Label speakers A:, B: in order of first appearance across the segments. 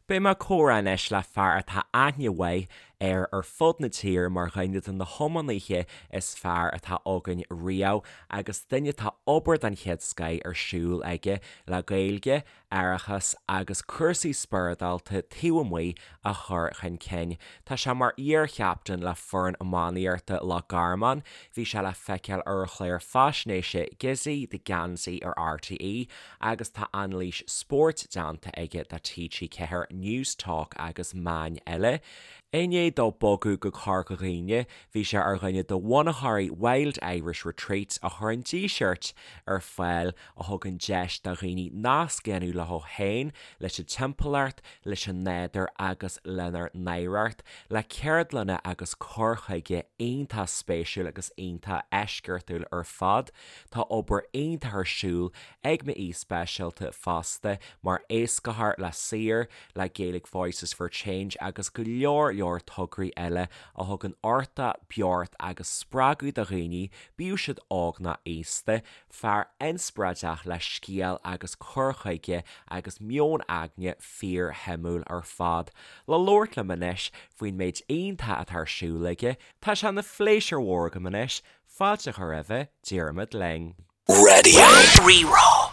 A: Beidh mé ag comhrá anois le fear atá aithne mhaith air ar fud na tíre mar dhuine de na hiománaithe is fearr atá againn riamh agus duine atá obair den chéad scoith ar siúl aige le Gaeilge, aireachas agus cúrsaí spioradálta taobh amuigh a chur chun cinn. Tá sé mar iar-chaptaen le foireann iománaíochta Loch Garman, bhí sé le feiceáil ar an chlár faisnéise Gizzy the Geansaí ar RTÉ agus tá anailís spóirt déanta aige do TG4, Newstalk agus meáin eile. I ndiaidh dó bogadh go Corca Dhuibhne, bhí sé ar dhuine de bhunaitheoirí Wild Irish Retreats a chuireann díseart ar fáil a thugann deis do dhaoine nasc a dhéanamh leo féin, leis an timpeallacht, leis an nádúr agus lenár n-oidhreacht, le ceardlanna agus cur chuige iontach spéisiúil agus iontach eisceachtúil ar fad. Tá obair iontach ar siúl ag m'aoi speisialta fosta mar éascaitheoir le Saor, le Gaelic Voices for Change agus go leor leor tograí eile a thugann uchtach, beocht agus spreagadh do dhaoine, bíodh siad óg nó aosta. Fear inspioráideach le scéal agus cur chuige agus meon aigne fíorshuimiúil ar fad. Le labhairt liom anois faoin méid iontach atá ar siúl aige, tá sé ina phléisiúr mhór agam anois fáilte a chur roimhe, Diarmuid Lyng.
B: Raidió Rí-Rá.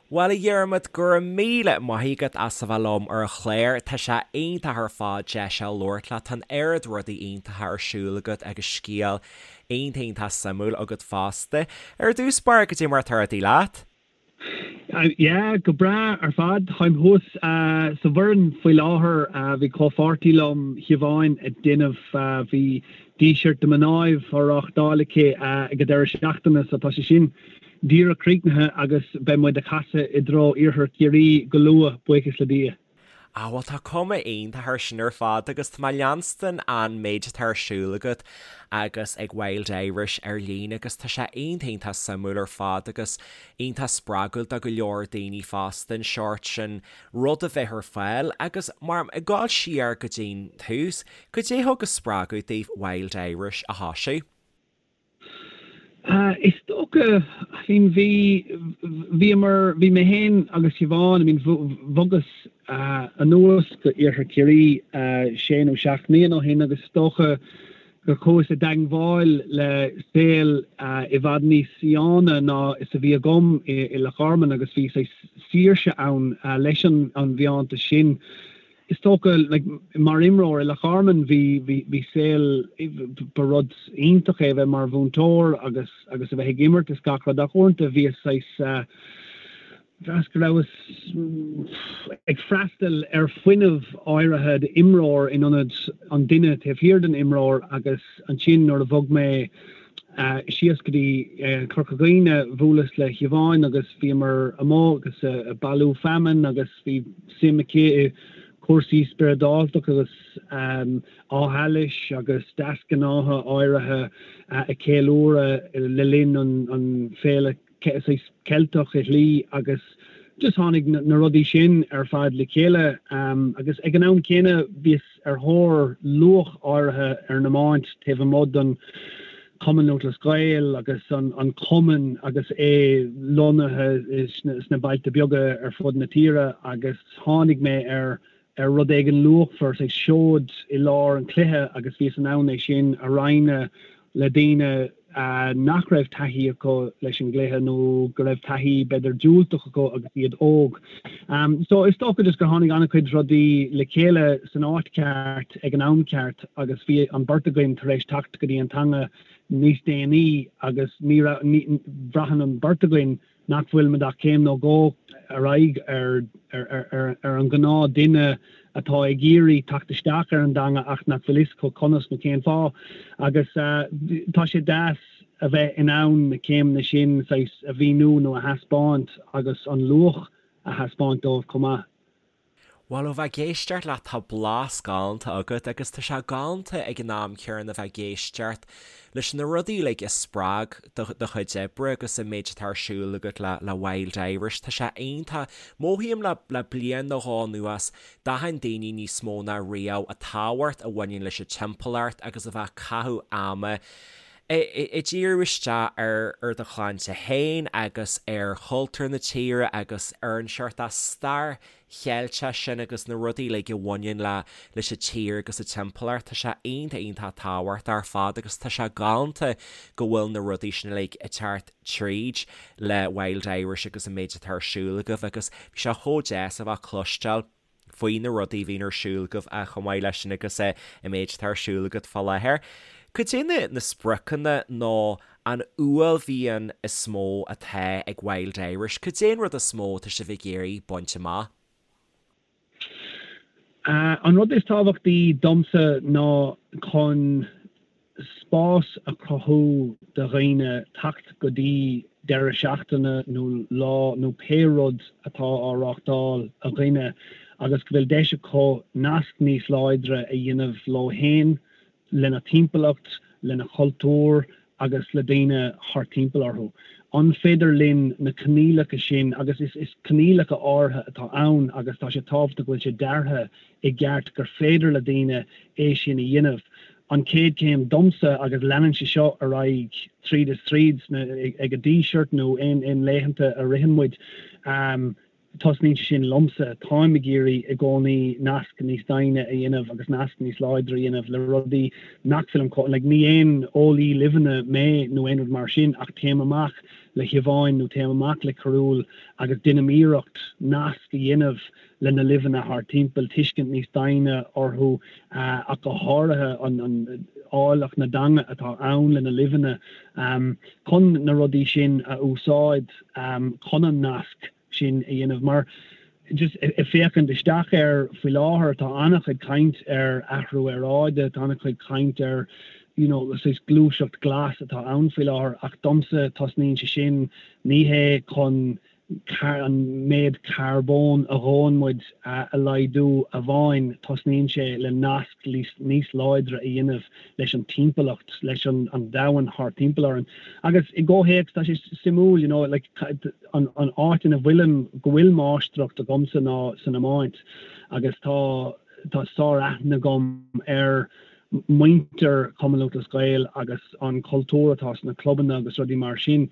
A: Bhuel, a Dhiarmuid, go raibh míle maith agat as a bheith liom ar an chlár. Tá sé iontach ar fad deis a labhairt leat. Tá an oiread rudaí iontacha ar siúl agat agus scéal iontach iontach suimiúil agat fosta. Ar dtús báire, goidé mar atá rudaí leat?
C: Yeah, go breá ar fad. Táim thuas sa Bhoireann faoi láthair. Bhí comhpháirtí liom, Siobhán, ag déanamh, bhí Díseart do Mhnáibh á reáchtáil aici ag an deireadh seachtaine so tá sé sin díreach críochnaithe agus beidh muid ag casadh i dtreo Iarthar Chiarraí go luath, buíochas le Dia.
A: Ah bhuel tá cuma iontach air sin ar fad agus tá mé ag leanstan an méid atá ar siúl agat agus ag Wild Irish ar líne agus tá sé iontach iontach suimiúil ar fad agus iontach spreagúil do go leor daoine fosta an seort sin rud a bheith ar fáil agus mar ag dul siar go dtí'n tús, goidé thug an spreagadh daoibh Wild Irish a thosú?
C: Is dócha, I mean bhí, bhíomar, bhí mé féin agus Siobhán, I mean bhogas anuas go Iarthar Chiarraí sé nó seacht mbliana ó shin agus is dócha gur chuas i dteangmháil le saol i bhfad níos fiáine ná is a bhí agam i Loch Garman agus bhí saghas saoirse ann leis an bhfiántas sin. Is dócha, like, mar imreoir i Loch Garman bhí, bhí, bhí saol, ba rud iontach é a bheith mar mhúinteoir agus, agus a bheith ag imirt is gach rud ach uaireanta bhíos saghas, bhraithis go rabhas ag freastal ar fuinneamh áirithe d'imreoir in ionad an duine taobh thiar den imreoir agus ansin nuair a bhog mé síos go dtí Corca Dhuibhne bhuaileas le Siobhán agus bhíomar amuigh agus ag bailiú feamainn agus bhí suim aici i cúrsaí spioradálta agus Áth Allais agus deasghnátha áirithe a ceiliúradh le linn an féile saghas Ceilteach i shlí agus just tháinig na rudaí sin ar fad le chéile agus ag an am céanna bhíos ar thóir luach áirithe ar an iomáint taobh amuigh den Cumann Lúthchleas Gael agus an cumann agus é lonnaithe sna bailte beaga ar fud na tíre agus tháinig mé ar ar rud éigin luachmhar, saghas seoid i lár an chluiche agus bhíos in ann é sin a roinnt le daoine nach raibh taithí acu leis an gcluiche nó go raibh taithí b'fhéidir diúltach acu agus iad óg. So is dócha just gur tháinig an-chuid rudaí le chéile san áit cheart ag an am ceart agus bhí an beirt againn tar éis teacht go dtí an teanga níos déanaí agus ní raibh, ní, bhraitheann an beirt againn nach bhfuilimid ach céim nó dhó ar aghaidh ar an ghnáth duine atá ag iarraidh teacht isteach ar an dteanga ach nach bhfuil fhios acu conas nó cén fáth. Agus tá sé deas a bheith in ann na céimeanna sin saghas a mhíniú nó a thaispeáint agus an luach a thaispeáint dóibh chomh maith.
A: Bhuel, ó bheith ag éisteacht leat, tá blas galánta agat agus tá sé galánta ag an am céanna bheith ag éisteacht leis na rudaí uilig a spreag do do chuid oibre agus an méid atá ar siúl agat le le Wild Irish. Tá sé iontach. Mothaím le le bliain nó dhó anuas, d'aithin daoine níos mó ná riamh an tábhacht a bhaineann leis an timpeallacht agus a bheith ag caitheamh ama. Ag díriú isteach ar ar do chlannsa féin agus ar chultúr na tíre agus ar an seort stair Cheilteach sin agus na rudaí uilig a bhaineann le leis an tír agus an timpeallacht, tá sé iontach iontach tábhachtach ar fad agus tá sé galánta go bhfuil na rudaí sin uilig ag teacht tríd le Wild Irish agus an méid atá ar siúl agaibh agus bhí sé chomh deas a bheith ag cloisteáil faoi na rudaí a bhíonn ar siúl agaibh chomh maith leis sin agus an méid atá ar siúl agat fá láthair. Cad é na na spriocanna nó an uaillmhian is mó atá ag Wild Irish? Cad é an rud is mó atá sibh ag iarraidh baint amach?
C: An rud is tábhachtaí domsa ná chun spás a chruthú do dhaoine teacht go dtí deireadh seachtaine nó lá nó pé rud atá á reáchtáil againne agus go bhfuil deis acu nasc níos láidre a dhéanamh leo fhéin, lena dtimpeallacht, lena chultúr agus le daoine thart timpeall orthu. An féidir linn na coinníollacha sin, agus is coinníollacha áirithe atá ann agus tá sé tábhachtach go bhfuil sé deartha i gceart gur féidir le daoine é sin a dhéanamh. An chéad chéim domsa, agus leanann sé seo ar aghaidh tríd is tríd ag an Díseart nó aon laethanta a ritheann muid, Tosnaíonn sé sin liomsa. Táim ag iarraidh i gcónaí nasc níos doimhne a dhéanamh agus nasc níos láidre a dhéanamh le rudaí nach bhfuilim chomh, like, ní aon eolaí luibheanna mé nó aon rud mar sin ach téim amach le Siobhán nó téim amach le Cearúll agus déanaim iarracht nasc a dhéanamh le na luibheanna thart timpeall, tuiscint níos doimhne orthu ach go háirithe an áilleacht na dteanga atá ann le na luibheanna chun na rudaí sin a úsáid chun an nasc sin a dhéanamh. Mar just ag féachaint isteach air faoi láthair, tá an-chuid caint ar athrú aeráide, tá an-chuid caint ar you know saghas gluaiseacht glas atá ann faoi láthair ach domsa tosnaíonn sé sin ní hé chun an méid carbóin a dhóann muid a laghdú amháin, tosnaíonn sé le nasc níos láidre a dhéanamh leis an timpeallacht, leis an domhan thart timpeall orainn. Agus i gcomhthéacs, tá sé suimiúil, you know, like, an áit ina bhfuilim, go bhfuil máistreacht agamsa ná san iomáint agus tá tá sár-aithne agam ar muintir Chumann Lúthchleas Gael agus an cultúr atá sna clubanna agus rudaí mar sin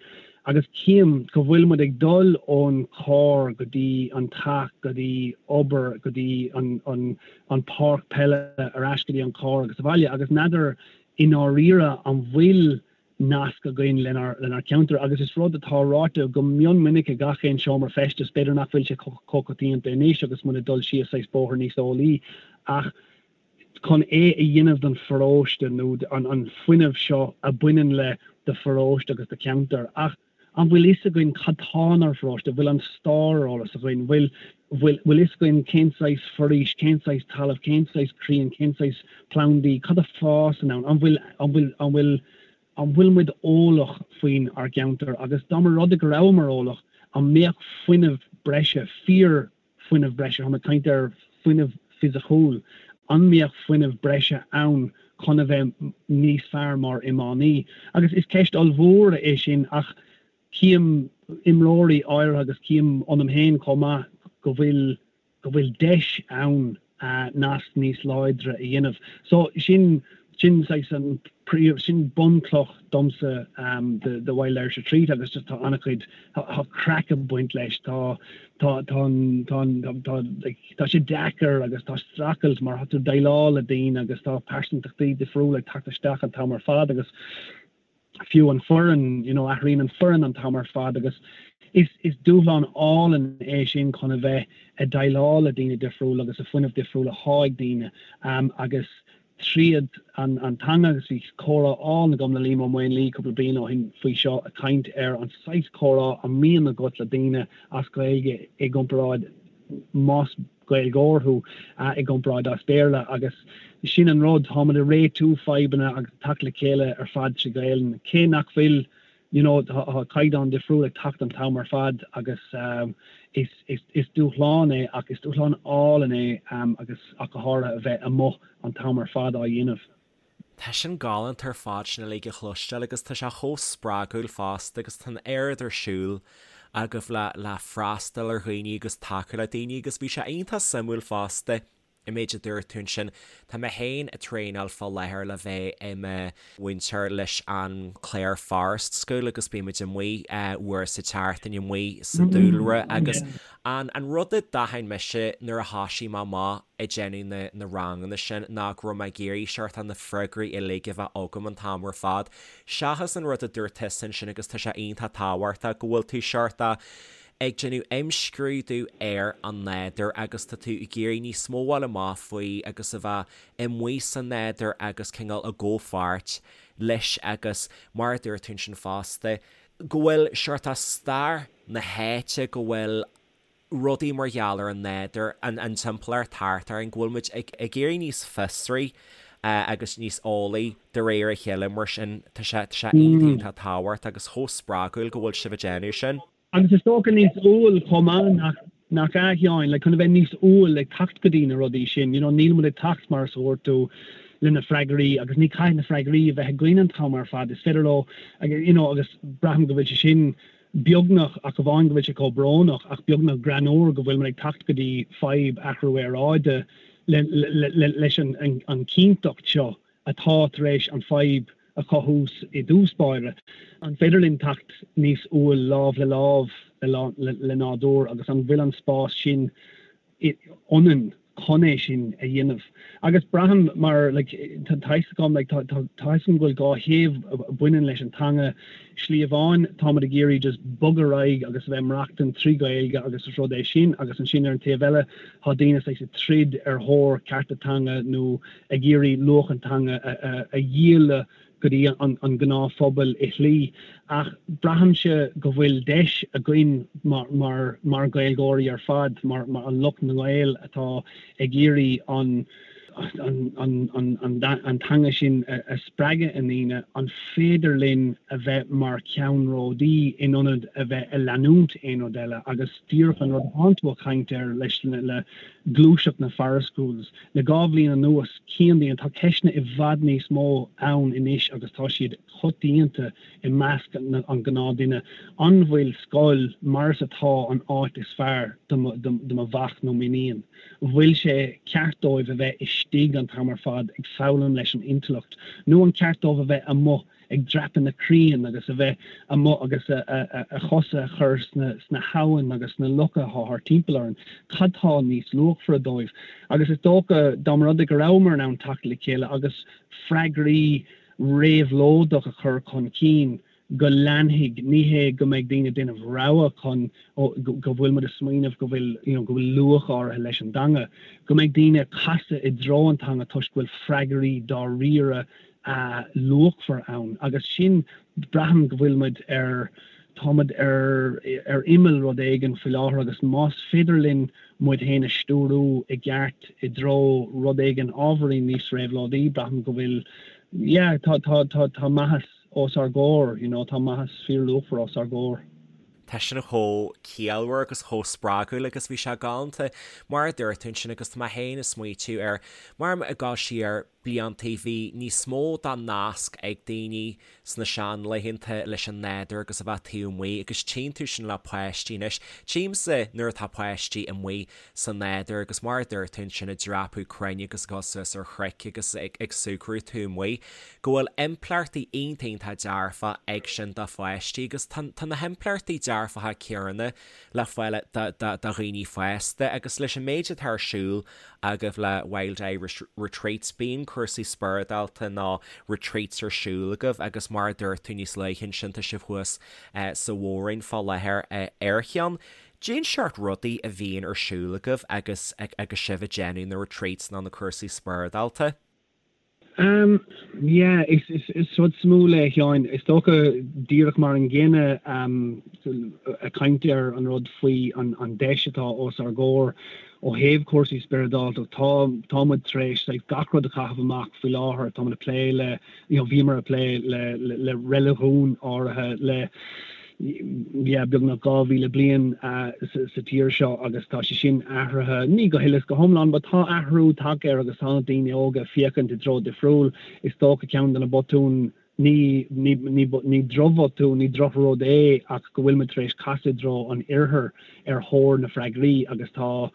C: agus cím go bhfuil muid ag dul ón carr go dtí an teach go dtí obair go dtí an an an páirc peile ar ais go dtí an carr agus abhaile agus n'fheadar i ndáiríre an bhfuil nasc againn lenár lenár ceantar agus is rud atá ráite go mion minic i gach aon seomra feistis, b'fhéidir nach bhfuil sé chomh coitianta anois agus muid ag dul síos saghas bóthar níos eolaí ach chun é a dhéanamh don pharóiste nó an an fuinneamh seo a bhaineann le do pharóiste agus do cheantar ach an bhfuil fhios againn cad tá inár bparóiste, bhfuil an stair ar eolas againn, bhfuil bhfuil bhfuil fhios againn cén saghas foraois, cén saghas talamh, cén saghas crainn, cén saghas plandaí, cad a fásann ann, an bhfuil an bhfuil an bhfuil an bhfuil muid eolach faoin ár gceantar agus dá mba rud é go rabhamar eolach, an mbeadh fuinneamh breise, fíor fuinneamh breise, táim ag caint ar fuinneamh fisiciúil, an mbeadh fuinneamh breise ann chun a bheith níos fearr mar iománaí? Agus is ceist ollmhór é sin ach cím imreoirí áirithe agus cím ionam féin chomh maith go bhfuil go bhfuil deis ann nasc níos láidre a dhéanamh. So sin sin saghas an príomh sin bunchloch domsa de Wild Irish Retreat agus just tá an-chuid tá craic ag baint leis tá tá tá an tá an tá like tá sé deacair agus tá streachailt mar tá tú ag déileáil le daoine agus tá pearsantachtaí difriúla ag teacht isteach an t-am ar fad agus fiú an foireann, you know, athraíonn an foireann an t-am ar fad agus is is dúshlán álainn é sin chun a bheith ag déileáil le daoine difriúla agus an fuinneamh difriúil atá ag daoine um, agus tríd an an teanga agus bhí comhrá álainn agam le Liam Ó Maonlaí cúpla bliain ó shin faoi seo ag caint ar an saghas comhrá a mbíonn agat le daoine as Gaeilge i gcomparáid más Gaeilgeoir thú i gcomparáid as Béarla agus sin an rud, táimid ag réitiú fadhbanna agus ag teacht le chéile ar fad trí Ghaelainn, cé nach bhfuil you know tá caighdeán difriúil ag teacht an t-am ar fad agus is is is dúshlán é ach is dúshlán álainn é agus ach go háirithe a bheith amuigh an t-am ar fad á dhéanamh.
A: Tá sin galánta ar fad sin uilig a chloisteáil agus tá sé chomh spreagúil fosta agus tá an oiread ar siúl agaibh le le freastal ar dhaoine agus tacú le daoine agus bhí sé iontach suimiúil fosta. An méid a dúirt tú ansin, tá mé féin ag traenáil fá láthair le bheith i mo mhúinteoir leis an Clare Forest School agus bímid amuigh uair sa tseachtain amuigh sa dúlra agus an an rud a d'aithin mise nuair a thoisigh mé amach ag déanamh na na ranganna sin ná go raibh mé ag iarraidh seort na freagraí uilig a bheith agam an t-am ar fad seachas an rud a dúirt tusa ansin agus tá sé iontach tábhachtach go bhfuil tú seort ag déanamh imscrúdú ar an nádúr agus tá tú ag iarraidh níos mó a fháil amach faoi agus a bheith amuigh sa nádúr agus cineál i gcomhpháirt leis agus mar a dúirt tú ansin fosta go bhfuil seort stair na háite, go bhfuil rudaí mar gheall ar an nádúr, an an timpeallacht thart orainn, go bhfuil muid ag ag éirí níos fiosraí agus níos eolaí de réir a chéile mar sin tá sé tá sé iontach iontach tábhachtach agus chomh spreagúil go bhfuil sibh ag déanamh sin.
C: Agus is dócha níos umhal chomh maith nach nach ea, a Sheáin, like chun a bheith níos umhal ag teacht go dtí na rudaí sin, you know, níl muid ag teacht, mar is a dúirt tú, le na freagraí agus ní caithfidh na freagraí a bheith againn an t-am ar fad, is féidir leo, you know, agus braithim go bhfuil sé sin beagnach, ach amháin go bhfuil sé chomh brónach, ach beagnach greannmhar go bhfuil muid ag teacht go dtí fadhb athrú aeráide le, le, le, leis an, an, an chinnteacht seo atá tar éis an fadhb a chothú i dtús báire. An féidir linn teacht níos umhal lámh le lámh le nádúr agus an bhfuil an spás sin ionainn chun é sin a dhéanamh? Agus braithim mar like tá fhios agam like tá tá fhios agam go bhfuil 2 thaobh a bhaineann leis an teanga. Slí amháin táimid ag iarraidh just bogadh ar aghaidh agus a bheith ag maireachtaint trí Ghaeilge agus is rud é sin agus ansin ar an taobh eile tá daoine saghas ag troid ar thóir cearta teanga nó ag iarraidh luach an teanga a dhíol go dtí an gnáthphobal i shlí ach braithimse go bhfuil deis againn mar mar Ghaeilgeoirí ar fad, mar an lucht na nGael atá ag iarraidh an an teanga sin a spreagadh i ndaoine, an féidir linn a bheith mar cheannródaí in ionad a bheith ag leanúint aon rud eile agus díreach an rud atánn tú ag caint air leis le gluaiseacht na Forest Schools. Le 2 bhliain anuas, cíonn daoine, tá ceisteanna i bhfad níos mó ann anois agus tá siad coitianta i measc an ghnáthduine, an bhfuil scoil mar is atá an áit is fearr do do mo mhac nó m'iníon? An bhfuil sé ceart dóibh a bheith istigh an t-am ar fad ag foghlaim leis an intleacht nó an ceart dóibh a bheith amuigh ag dreapadh na crainn agus a bheith amuigh agus a chosa a chur sna habhann agus sna locha atá thart timpeall orainn, cad tá níos luachmhaire dóibh? Agus is dócha, dá mba rud é go rabhamar in ann teacht le chéile agus freagraí réabhlóideach a chur chun cinn, go leanfaidh, ní hé go mbeidh daoine ag déanamh rogha chun, go bhfuil muid ag smaoineamh go bhfuil, you know, go bhfuil luach áirithe leis an dteanga, go mbeidh daoine ag casadh i dtreo an teanga toisc go bhfuil freagraí dáiríre luachmhar ann agus sin, braithim go bhfuil muid ar, tá muid ar, ar imeall rud éigin faoi láthair agus más féidir linn muid féin a stiúrú i gceart i dtreo rud éigin ábhairín níos réabhlóidí, braithim go bhfuil, yeah, tá, tá, tá, tá maitheas os ár gcomhair, you know, tá maitheas fíorluachmhar os ár gcomhair.
A: Tá sin chomh ciallmhar agus chomh spreagúil agus bhí sé galánta mar a dúirt tú ansin agus tá mé féin ag smaoitiú ar mar ag dul siar bliantaí bhí níos mó dá nasc ag daoine sna seanlaethanta leis an nádúr agus a bheith taobh amuigh agus tchíonn tú sin le páistí anois. Tchímse nuair atá páistí amuigh sa nádúr agus mar a dúirt tú ansin ag dreapadh crainn agus ag dul suas ar chnoic agus ag ag súgradh taobh amuigh go bhfuil impleachtaí iontach iontach dearfach ag sin do pháistí agus tá tá na himpleachtaí dearfacha céanna le fáil do do do dhaoine fásta agus leis an méid atá ar siúl agaibh le Wild Irish Retreats bíonn cúrsaí spioradálta nó retreats ar siúl agaibh agus mar a dúirt tú níos luaithe ansin tá sibh thuas sa Mhór-Roinn fá láthair ar cheann. Cén seort rudaí a bhíonn ar siúl agaibh agus agus sibh ag déanamh na retreats nó na cúrsaí spioradálta?
C: Um, yeah, is, is, is rud suimiúil é, a Sheáin. Is dócha, díreach mar an gcéanna, um, ag caint ar an rud faoi an, an deis atá os ár gcomhair ó thaobh cúrsaí spioradálta, tá, tá muid tar éis like, gach rud a chaitheamh amach faoi láthair, tá muid ag plé le, you know, bhíomar ag plé le, le, le reiligiún áirithe, le, yeah, beagnach 2,000 bliain sa tír seo agus tá sé sin athraithe, ní go huile is go hiomlán, but tá athrú tagtha air agus tá na daoine óga ag féachaint i dtreo difriúil. Is dócha ceann de na botúin, ní, ní, ní, ní drochbhotún, ní drochrud é ach go bhfuil muid tar éis casadh i dtreo an oirthir ar thóir na freagraí agus tá.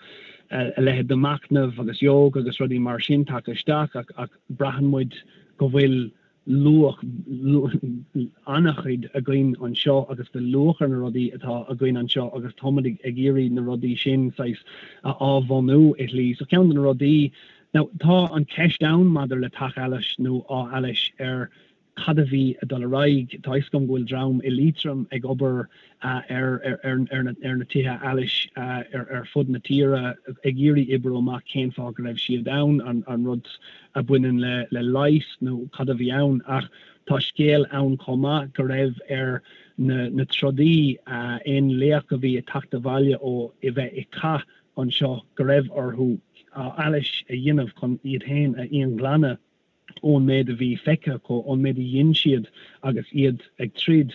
C: a leithéid de machnamh agus yoga agus rudaí mar sin tagtha isteach ach ach braitheann muid go bhfuil luach an-chuid againn anseo agus go bhfuil luach ar na rudaí atá againn anseo agus táimid ag iarraidh na rudaí sin saghas a athbhunú i shlí. So ceann de na rudaí, now tá an ceist ann maidir le Teach Allais nó Áth Allais ar cad a bhí ag dul ar aghaidh. Tá a fhios agam go bhfuil dream i Liatroim ag obair ar na tithe allais ar fud na tíre ag iarraidh oibriú amach cén fáth go raibh siad ann, an rud a bhaineann le leigheas nó cad a bhí ann. Ach tá scéal ann chomh maith go raibh ar na trodaí, aon laoch a bhí ag teacht abhaile ó a bheith i cath anseo, go raibh orthu allas a dhéanamh chun iad féin a íonghlanadh. ón méid a bhí feicthe acu, ón méid a dhein siad agus iad ag troid,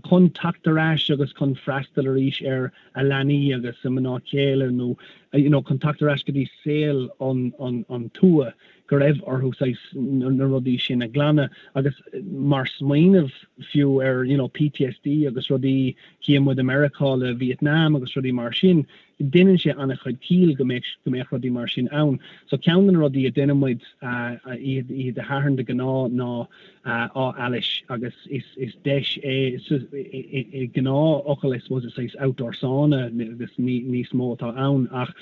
C: chun teacht ar ais agus chun freastal arís ar a leanaí agus a mná céile nó you know chun teacht ar ais go dtí saol an, an, an tuath, go raibh orthu saghas na rudaí sin a ghlanadh agus mar smaoineamh fiú ar you know PTSD agus rudaí, chíonn muid i Meiriceá le Vietnam agus rudaí mar sin, Deineann sé an-chuid ciall go mbeadh go mbeadh rudaí mar sin ann. So ceann de na rudaí a deineann muid oíche Dé Sathairn de ghnáth ná Áth Allais agus is is deis é i ngnáthfhocal I suppose is saghas outdoor sauna agus ní níos mó atá ann ach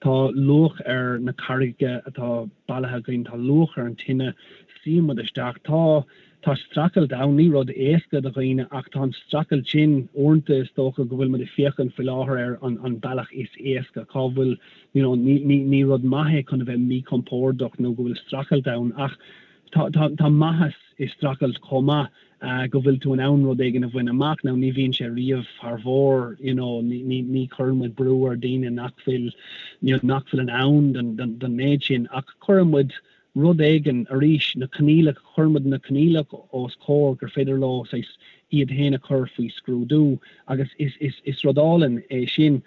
C: tá luach ar na carraigeacha atá bailithe againn, tá luach ar an tine, suíonn muid isteach, tá Tá streachailt ann, ní rud éasca do dhaoine ach tá an streachailt sin, uaireanta is dócha go bhfuil muid ag féachaint faoi láthair ar an an bealach is éasca, cá bhfuil you know ní ní ní rud maith é chun a bheith míchompordach nó go bhfuil streachailt ann ach tá tá tá maitheas i streachailt chomh maith go bhfuil tú in ann rud éigin a bhaint amach. Now ní bhíonn sé riamh thar bharr you know ní ní ní chuireann muid brú ar daoine nach bhfuil you know nach bhfuil in ann don don don méid sin ach cuireann muid rud éigin, arís, na coinníollacha, cuireann muid na coinníollacha os comhair gur féidir leo saghas iad féin a chur faoi scrúdú agus is, is, is rud álainn é sin.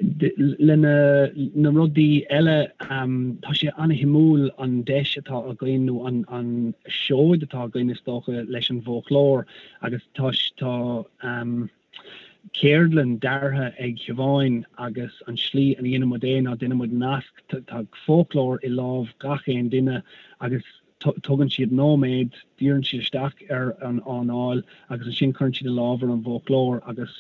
C: Le na, na rudaí eile, tá sé an-shuimiúil an deis atá againn nó an, an seoid atá againn is dócha leis an bhfoclóir agus tá, tá, ceardlann deartha ag Siobhán agus an slí a ndéanann muid é ná déanann muid nasc, tá foclóir i lámh gach aon duine agus tugann siad nóiméad, díríonn siad isteach ar an anáil agus ansin cuireann siad a lámh ar an bhfoclóir agus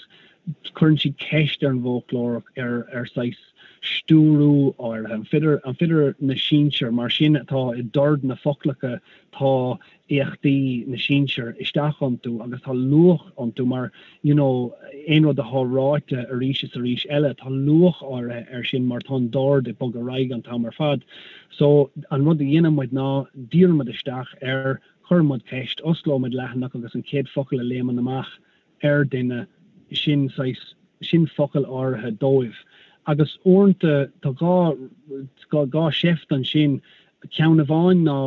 C: cuireann siad ceist ar an bhfoclóir ar ar saghas stiúrú áirithe. An féidir an féidir na sinsir mar sin atá i dord na foclacha tá éachtaí na sinsear isteach iontu agus tá luach iontu mar you know aon rud atá ráite arís is arís eile tá luach áirithe air sin mar tá an dord ag bogadh ar aghaidh an t-am ar fad. So an rud a dhéanann muid ná díríonn muid isteach air, cuireann muid ceist, osclóidh muid leathanach agus an chéad focal a léimeann amach ar duine sin saghas sin focal áirithe dóibh agus uaireanta tá dhá dhá sheift ansin ceann amháin ná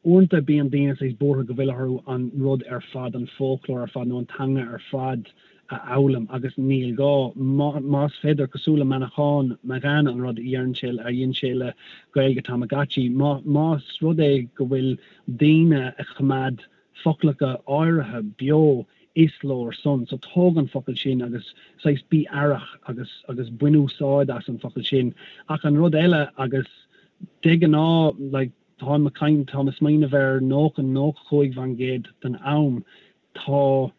C: Uaireanta bíonn daoine saghas buartha go bhfuil orthu an rud ar fad, an foclóir ar fad nó an teanga ar fad a fhoghlaim agus níl gá. Más féidir, cosúil le Manchán Magan an rud a dhéanann sé, a dhein sé le Gaeilge Tamagotchi, más rud é go bhfuil daoine a choimeád foclacha áirithe beo is leor san. So tóg an focal sin agus saghas bí aireach agus agus bain úsáid as an focal sin. Ach an rud eile agus de ghnáth like, Táim ag caint, táim ag smaoineamh ar 90, 95% den am, tá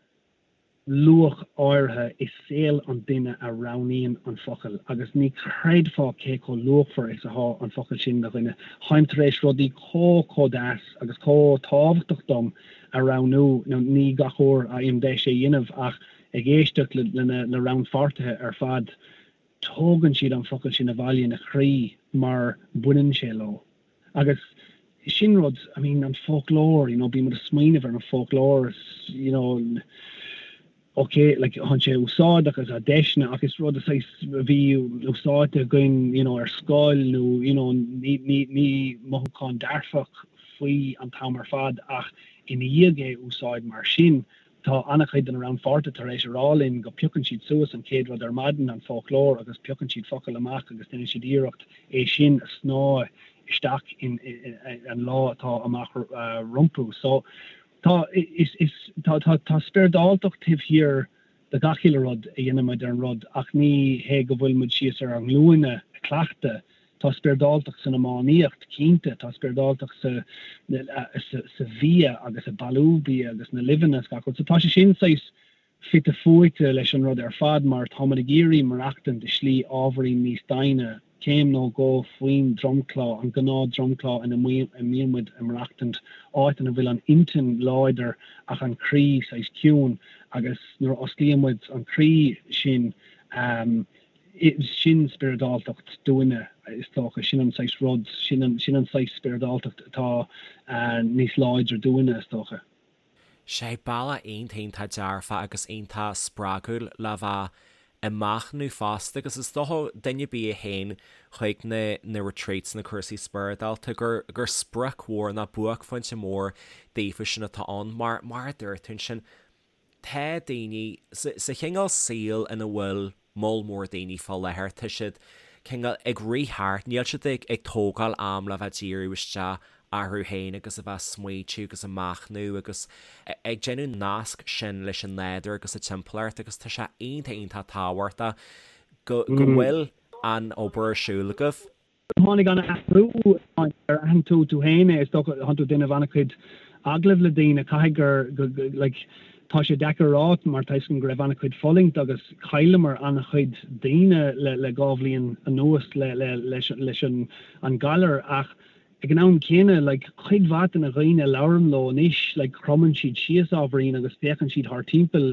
C: luach áirithe i saol an duine a roghnaíonn an focal agus ní chreidfeá cé chomh luachmhar is atá an focal sin do dhuine. Táim tar éis rudaí chomh, chomh deas agus chomh tábhachtach dom a roghnú, now ní gach uair a fhaighim deis é a dhéanamh ach ag éisteacht le na rannpháirtithe ar fad, tógann siad an focal sin abhaile ina chroí mar baineann sé leo. Agus sin rud, I mean, an foclóir, you know, bíonn muid ag smaoineamh ar an foclóir, you know, ok, like, tá sé úsáideach agus tá deiseanna ach is rud saghas a bhí úsáidte againn, you know, ar scoil nó, you know, ní, ní, ní mothúchán dearfach faoi an t-am ar fad ach ina dhiaidh é úsáid mar sin, Tá an-chuid de na rannpháirtithe tar éis a rá linn go piocann siad suas an chéad rud ar maidin, an foclóir, agus piocann siad focal amach agus déanann siad iarracht é sin a shnáth isteach in an lá atá amach rompu. So tá, is, is, tá, tá, tá spioradáltacht taobh thiar. do gach uile rud a dhéanann muid ar an rud ach ní hé go bhfuil muid síos ar ár nglúine ag cleachtadh. Tá spioradáltacht san iománaíocht, cinnte, tá spioradáltacht sa sa bhia agus i bailiú bia agus na luibheanna is gach rud. So tá sé sin saghas fite fuaite leis an rud ar fad mar tá muid ag iarraidh maireachtaint i slí ábhairín níos doimhne, céim nó dhó faoin dromchla, an gnáth dromchla ina mbíonn muid ag maireachtaint, áit ina bhfuil an intinn láidir ach an croí saghas ciúin agus nuair a osclaíonn muid an croí sin, sin spioradáltacht dúinne is dócha, sin an saghas rud, sin an saghas spioradáltacht atá níos láidre dúinne is dócha.
A: Sé bealach iontach iontach dearfach agus iontach spreagúil le bheith ag machnamh fosta agus is dócha duine ar bith a théann chuig na na retreats na cúrsaí spioradálta gur gur sprioc mhór nó buaicphointe mór daofa sin atá ann mar mar a dúirt tú ansin Tá daoine, sa chineál saoil ina bhfuil moll mór daoine fá láthair, tá siad cineál ag rith thart, níl siad ag tógáil am le bheith díriú isteach orthu féin agus a bheith ag smaoitiú agus ag machnamh agus ag déanamh nasc sin leis an nádúr agus a timpeallacht agus tá sé iontach iontach tábhachtach go bhfuil an obair ar siúl agaibh.
C: Tháinig an athrú ar aithin tú tú féin é, is dócha, thánn tú ag déanamh an-chuid agallamh le daoine, caithfidh gur, like, tá sé deacair a rá mar tá 'fhios agam go raibh an-chuid fulaingt agus chailleamar an-chuid daoine le le 2 bhliain anuas le le leis leis an an galar ach ag an am céanna like cuid mhaith de na dhaoine a labhraím leo anois like cromann siad síos ábhairín agus féachann siad thart timpeall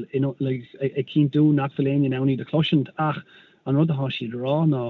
C: like ag cinntiú nach bhfuil éinne in ann iad a chloisint ach an rud atá siad a rá ná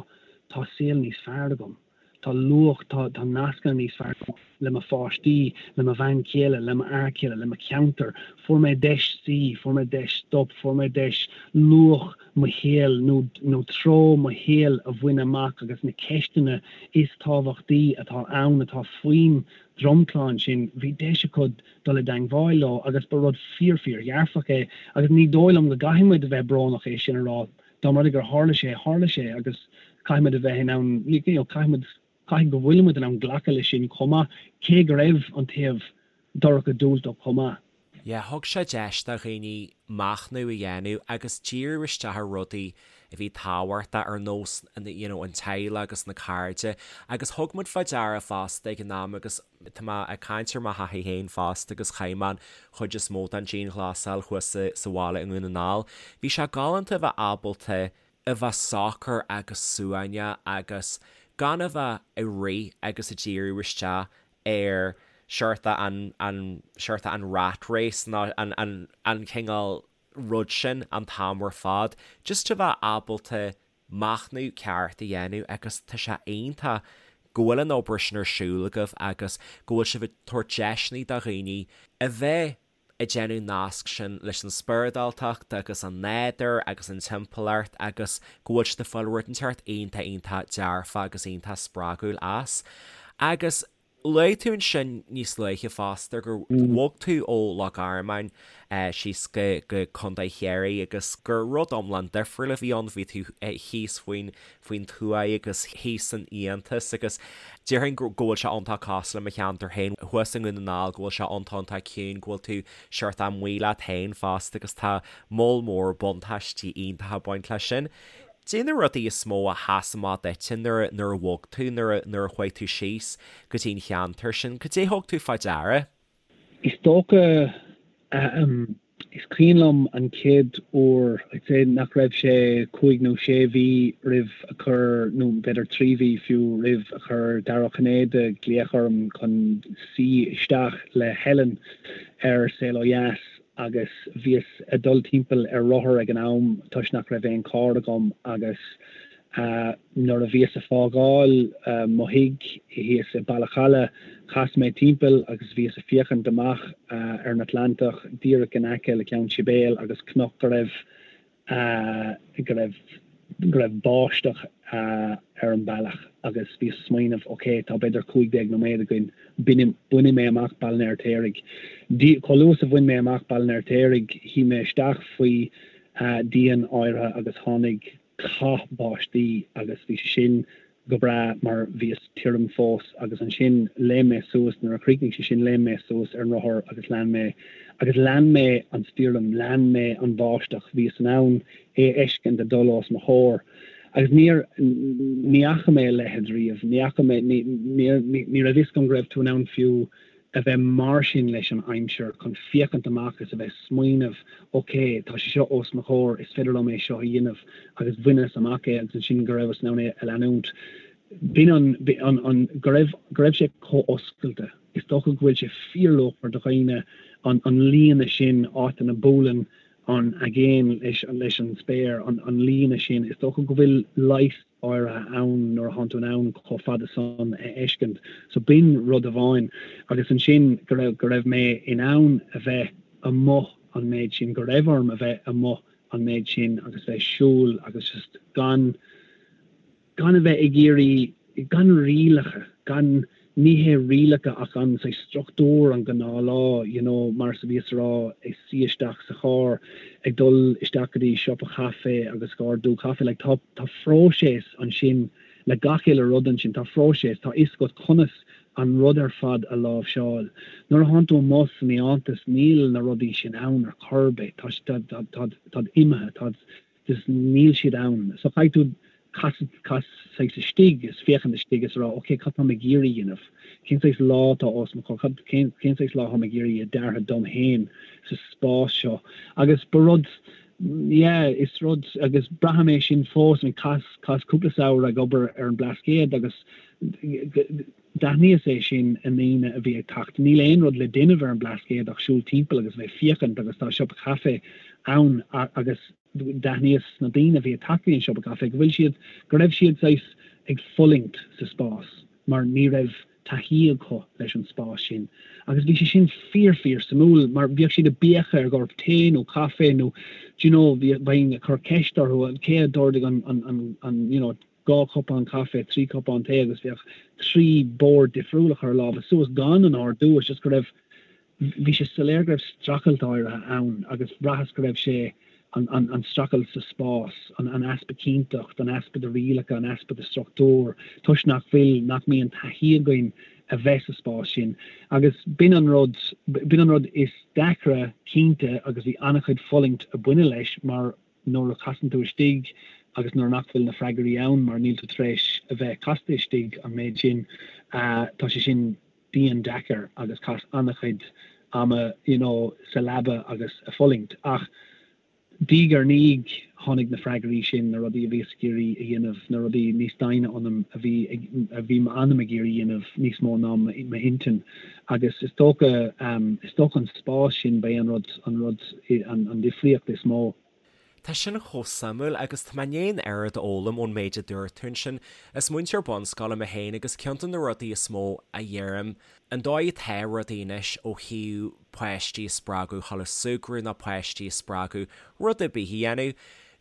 C: tá saol níos fearr agam, tá luach, tá, tá nascanna níos fearr agam le mo pháistí, le mo bhean chéile, le mo fhear céile, le mo cheantar, fuair mé deis suí, fuair mé deis stop, fuair mé deis luach mo shaoil nó, nó treo mo shaoil a bhaint amach agus na ceisteanna is tábhachtaí atá ann, atá faoin dromchla ansin, bhí deis acu dul i dteangmháil leo agus ba rud fíor fíor dhearfach é agus ní dóigh liom go gcaithfidh muid a bheith brónach é sin a rá. Dá mba rud é gur tharla sé, tharla sé agus caithfidh muid a bheith in ann, you know, caithfidh muid, caithfidh go bhfuil muid in ann glacadh leis sin chomh maith, cé go raibh an taobh dorcha diúltach chomh maith.
A: Yeah, thug sé deis do dhaoine machnamh a dhéanamh agus díriú isteach ar rudaí a bhí tábhachtach ar nós you know an teaghlach agus na cairde agus thug muid fá deara fosta ag an am agus Tá mé ag caint ar mo thaithí féin fosta agus chaith mé an chuid is mó den dianghlasáil thuas sa bhaile i nDún na nGall. Bhí sé galánta a bheith ábalta a bheith socair agus suaimhneach agus gan a bheith ag rith agus ag díriú isteach ar seort an, an, seort an rat race nó an, an, an cineál rud sin an t-am ar fad. Just a bheith ábalta machnamh ceart a dhéanamh agus tá sé iontach go bhfuil an obair sin ar siúl agaibh agus go bhfuil sibh ag tabhairt deiseanna do dhaoine a bheith ag déanamh nasc sin leis an spioradáltacht agus an nádúr agus an timpeallacht agus go bhfuil siad ag fáil rud inteacht iontach iontach dearfach agus iontach spreagúil as. Agus Luaigh tú ansin níos luaithe fosta gur bhog tú ó Loch Garman síos go go Contae Chiarraí agus gur rud iomlán difriúil a bhí ann, bhí tú thíos faoin faoin tuath agus thíos san fhiántas agus déarfainn go go bhfuil sé iontach cosúil le mo cheantar féin thuas i nDún na nGall go bhfuil sé iontach iontach ciúin, go bhfuil tú seort amuigh leat féin fosta agus tá moll mór buntáistí iontacha ag baint leis sin. Cad é na rudaí is mó a sheas amach duitse nuair nuair a bhog tú, nuair a nuair a chuaigh tú síos go dtí an cheantar sin? Cad é thug tú fá deara?
C: Is dócha, ahem, is cuimhin liom an chéad uair, I'd say nach raibh sé cúig nó sé mhí roimh a chuir, nó b'fhéidir 3 mhí fiú, roimh a chuir Dara Ó Cinnéide glaoch orm chun suí isteach le Helen ar Saol Ó Dheas agus bhíos ag dul timpeall ar rothar ag an am toisc nach raibh aon charr agam agus nuair a bhíos ag fágáil mo thigh thíos i Bealach Challa chas mé timpeall agus bhíos ag féachaint amach ar an Atlantach díreach in aice le Ceann Sibéal agus cnoc go raibh go raibh go raibh báisteach ar an bealach agus bhíos ag smaoineamh ok tá b'fhéidir 15 nóiméad againn, bainfidh mé amach Baile an Fheirtéaraigh. Chomh luath is a bhain mé amach Baile an Fheirtéaraigh shuigh mé isteach faoi dhíon áirithe agus tháinig cath báistí agus bhí sé sin. Go breá mar bhíos tirim fós agus ansin léim mé suas, nuair a chríochnaigh sé sin léim mé suas ar an rothar agus lean mé agus lean mé an stoirm, lean mé an bháisteach, bhíos in ann é a fheiscint ag dul os mo chomhair agus níor, ní fhaca mé a leithéid riamh, ní fhaca mé, ní, ní, ní raibh fhios agam go raibh tú in ann fiú a bheith mar sin leis an aimsir, chun féachaint amach is a bheith smaoineamh, ok, tá sé seo os mo chomhair, is féidir liom é seo a dhéanamh agus bhaineas amach é agus ansin go rabhas in ann é a leanúint. B'in an, an, an, go raibh, go raibh sé chomh oscailte. Is dócha go bhfuil sé fíorluachmhar do dhaoine an, an líne sin, áit ina buaileann an aigéan leis, leis an spéir, an, an líne sin, is dócha go bhfuil leigheas áirithe ann nuair a thánn tú in ann chomh fada san a fheiscint. So b'in rud amháin. Agus ansin go raibh, go raibh mé in ann a bheith amuigh an méid sin, go raibh orm a bheith amuigh an méid sin agus bheith ag siúl agus just gan, gan a bheith ag iarraidh, gan rialacha, gan, ní hé rialacha ach an saghas struchtúr, an gnáthlá, you know, mar is a bhíos a rá, ag suí isteach sa charr, ag dul isteach go dtí siopa chaife agus ag ordú caife, like tá, tá phróiseas ansin le gach uile rud ansin, tá phróiseas, tá fhios agat conas an rud ar fad a láimhseáil. Nuair a thánn tú amuigh san fhiántas níl na rudaí sin ann ar chor ar bith, tá, tá, tá, tá, táid imithe, táid, just níl siad ann. So caithfidh tú casadh, cas saghas istigh is féachaint istigh is a rá ok cad táim ag iarraidh a dhéanamh? Cén saghas lá atá os mo chomhair? Cad, cén, cén saghas lá táim ag iarraidh a deartha dom féin sa spás seo? Agus ba rud, yeah, is rud, agus braithim é sin fós, I mean chaitheas, chaitheas cúpla samhradh ag obair ar an Blascaod agus D'aithníos é sin i ndaoine a bhí ag teacht. Níl aon rud le déanamh ar an Blascaod ach siúl timpeall agus bheith féachaint agus tá siopa caife ann agus d'aithníos sna daoine a bhí ag teacht go dtí an siopa caife go bhfuil siad, go raibh siad saghas ag fulaingt sa spás mar ní raibh taithí acu leis an spás sin. Agus bhí sé sin fíor fíor suimiúil mar bhíodh siad ag béiceadh ar ghort tae nó caife nó do you know bheinn ag cur ceist orthu cé a d'ordaigh an an an you know 2 chupán caife, 3 cupán tae agus bheadh 3 bord difriúil ag cur a lámha suas gan an ordú, it's just go raibh, bhí sé soiléir go raibh streachailt áirithe ann agus bhraitheas go raibh sé, an, an, an streachailt sa spás, an, an easpa cinnteacht, an easpa de rialacha, an easpa de struchtúr, toisc nach bhfuil, nach mbíonn taithí againn a bheith sa spás sin. Agus b'in an rud, b'in an rud is deacra cinnte agus bhí an-chuid fulaingt a baineadh leis mar, nuair a chasann tú istigh agus nuair nach bhfuil na freagraí ann mar níl tú tar éis a bheith casta istigh an méid sin, tá sé sin dian deacair agus chaitheas an-chuid ama you know sa leaba agus a fulaingt. Ach diaidh ar ndiaidh tháinig na freagraí sin, na rudaí a bhíos ag iarraidh a dhéanamh, na rudaí níos doimhne ionam a bhí a bhí m'anam ag iarraidh a dhéanamh níos mó ná m'intinn. Agus is dócha, is dócha an spás sin, ba é an rud, an rud, an difríocht is mó.
A: Tá sin chomh suimiúil agus tá mé i ndiaidh an oiread a fhoghlaim ón méid a dúirt tú ansin. Is múinteoir bunscoile mé féin agus ceann de na rudaí is mó a dheirim, an dóigh atá rudaí anois ó thaobh páistí a spreagadh dhul ag súgradh nó páistí a spreagadh rud ar bith a dhéanamh,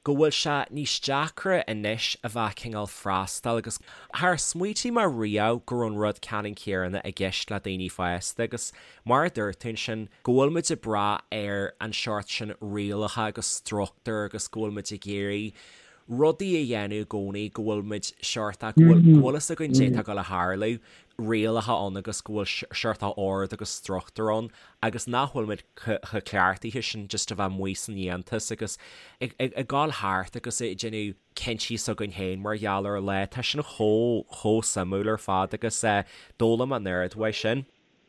A: go bhfuil sé níos deacra anois a bheith cineál freastal agus char smaoitigh mé riamh go raibh an rud ceannann céanna i gceist le daoine fásta agus mar a dúirt tú ansin go bhfuil muid ag brath ar an seort sin rialacha agus struchtúr agus go bhfuil muid ag iarraidh rudaí a dhéanamh i gcónaí go bhfuil muid seort go bhfuil go bhfuil fhios againn cad é atá ag dul a tharlú rialacha ann agus go bhfuil seort ord agus struchtúr ann agus nach bhfuil muid chomh cleachtaithe sin just a bheith amuigh san fhiántas agus ag dul thart agus ag déanamh cinntí s'againn féin mar gheall ar an lá. Tá sin chomh, chomh suimiúil ar fad agus d'fhoghlaim mé an oiread uaidh sin.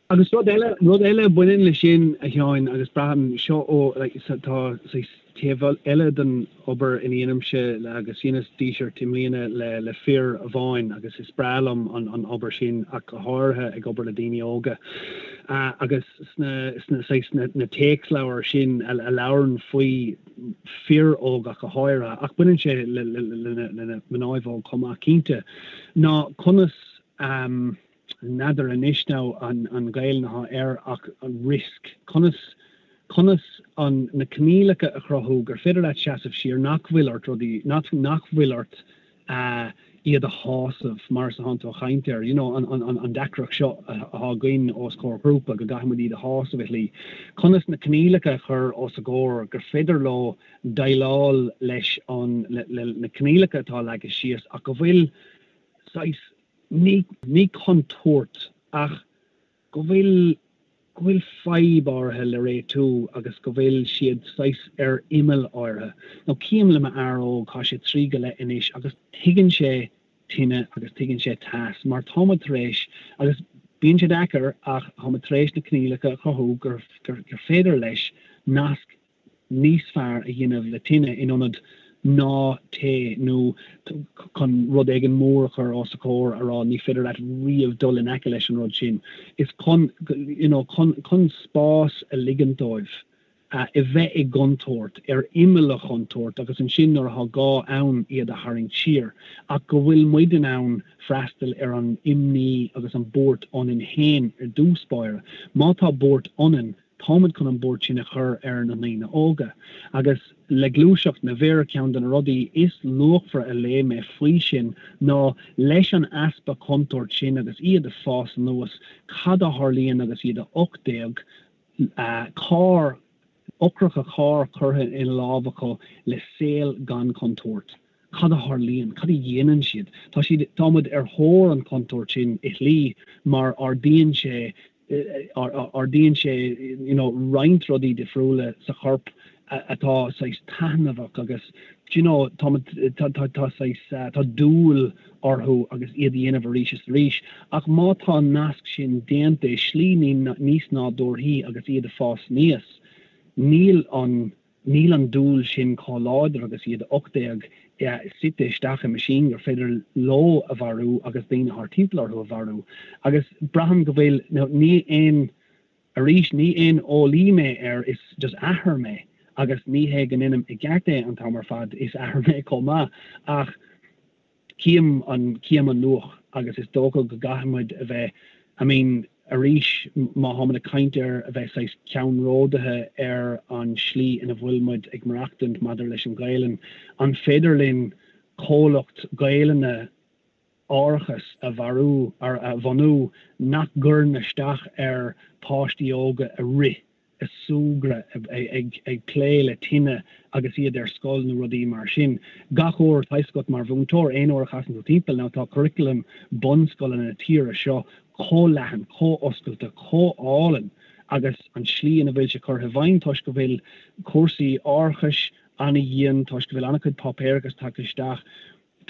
C: Agus rud eile, rud eile a bhaineann leis sin, a Sheáin, agus braithim seo ó, like, tá saghas taobh eile den obair ina dhéanaimse agus dheineas díseart i mbliana le le fir amháin agus is breá liom an an obair sin ach go háirithe ag obair le daoine óga agus sna sna saghas na na téacsleabhair sin a a labhrann faoi fir óga ach go háirithe ach baineann sé le le le le na mnáibh óg chomh maith cinnte ná conas N'fheadar anois now an an Ghaelainn atá air ach an risk, conas, conas an, na coinníollacha a chruthú gur féidir leat seasamh siar, nach bhfuil ort rudaí, nach, nach bhfuil ort iad a shásamh mar is atánn tú a chaint air, you know, an, an, an, an deacracht seo atá againn os comhair ghrúpa go gcaithfidh muid iad a shásamh i shlí. Conas na coinníollacha a chur os a gcomhair gur féidir leo déileáil leis an, le, le, na coinníollacha atá leagtha síos ach go bhfuil. saghas, ní, ní contúirt ach go bhfuil, go bhfuil fadhb áirithe le réitiú agus go bhfuil siad saghas ar imeall áirithe. Now cím le m'fhear óg, tá sé trí go leith anois agus tuigeann sé tine agus tuigeann sé teas mar tá muid tar éis, agus bíonn sé deacair ach tá muid tar éis na coinníollacha a chruthú gur, gur féidir leis nasc níos fearr a dhéanamh le tine in ionad ná téigh nó chun rud éigin mór a chur os a chomhair a rá ní féidir leat riamh dul in aice leis an rud sin. Is chun, you know, chun, chun spás a ligint dóibh a bheith i gcontúirt, ar imeall an chontúirt agus ansin nuair atá gá ann iad a tharraingt siar ach go bhfuil muid in ann freastal ar an imní agus an buairt ionainn féin ar dtús báire. Má tá buairt ionainn, Táimid chun an buairt sin a chur ar na ndaoine óga. Agus le gluaiseacht na bhfir, ceann de na rudaí is luachmhaire a léigh mé faoi sin ná leis an easpa contúirt sin agus iad ag fás anuas, cad a tharlaíonn agus iad 18, carr, eochracha cairr curtha ina lámh acu le saol gan chontúirt. Cad a tharlaíonn? Cad a dhéanann siad? Tá siad, tá muid ar thóir an chontúirt sin i shlí mar ardaíonn sé ardaíonn sé you know roinnt rudaí difriúla sa chorp atá saghas taitneamhach agus do you know tá tá tá tá saghas tá dúil orthu agus iad a dhéanamh arís is arís ach má tá an nasc sin déanta i slí níos nádúrthaí agus iad ag fás aníos níl an Níl an dúil sin chomh láidir agus iad 18 suite isteach i meaisín gur féidir leo a mharú agus daoine thart timpeall orthu a mharú. Agus braithim go bhfuil, ní aon, arís, ní aon eolaí mé air, is just athair mé agus ní hé go ndéanaim i gceart é an t-am ar fad, is athair mé chomh maith ach, Cím an, cím an luach agus is dócha go gcaithfidh muid a bheith, I mean, arís, má tháimid ag caint ar a bheith saghas ceannródaithe ar an slí ina bhfuil muid ag maireachtaint maidir leis an Ghaelainn, an féidir linn comhlacht Gaelainne árachais a bharú, a bhunú nach gcuireann isteach ar páistí óga a rith ag súgradh, ag plé le tine agus iad ar scoil nó rudaí mar sin. Gach uair, tá 'fhios agat mar mhúinteoir, aon uair a chasann tú timpeall, now tá curriculum bunscoileanna na tíre seo chomh leathan, chomh oscailte, chomh álainn agus an slí ina bhfuil sé curtha i bhfeidhm toisc go bhfuil cúrsaí árachais an-dhian, toisc go bhfuil an-chuid páipéarachas tagtha isteach.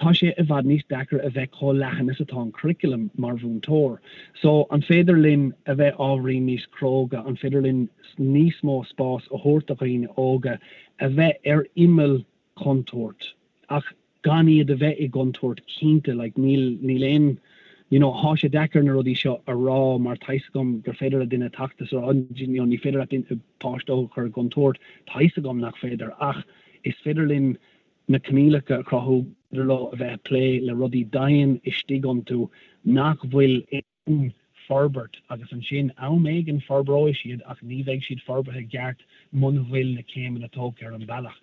C: Tá sé i bhfad níos deacra a bheith chomh leathan is atá an curriculum mar mhúinteoir. So, an féidir linn a bheith ábhairín níos cróga, an féidir linn níos mó spás a thabhairt do dhaoine óga a bheith ar imeall contúirt ach gan iad a bheith i gcontúirt cinnte, like níl, níl aon, you know, thá sé deacair na rudaí seo a rá mar tá 'fhios agam gur féidir le duine teacht is a rá, you know, ní féidir leat páiste óg a chur i gcontúirt, tá 'fhios agam nach féidir ach is féidir linn na coinníollacha a chruthú gur féidir leo a bheith ag plé le rudaí dian istigh iontu nach bhfuil in forbairt agus ansin am éigin forbróidh siad ach ní bheidh siad forbartha i gceart muna bhfuil na céimeanna tógtha ar an bhealach.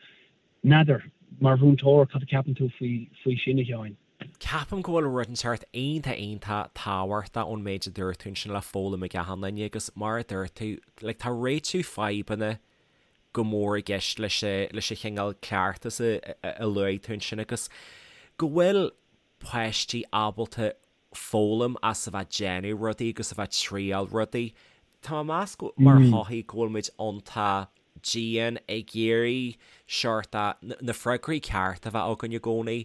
C: N'fheadar, mar mhúinteoir, cad a ceapann tú faoi faoi sin, a Sheáin?
A: Ceapaim go bhfuil rud inteacht iontach iontach tábhachtach ón méid a dúirt tú ansin le foghlaim ag achan duine agus mar a dúirt tú, like tá réitiú fadhbanna go mór i gceist leis leis an chineál cleachtas a luaigh tú ansin agus go bhfuil páistí ábalta foghlaim as a bheith ag déanamh rudaí agus a bheith ag triail rudaí. Tá mé ag meas go, mar shochaí, go bhfuil muid iontach dian ag iarraidh seort na freagraí cearta a bheith againn i gcónaí,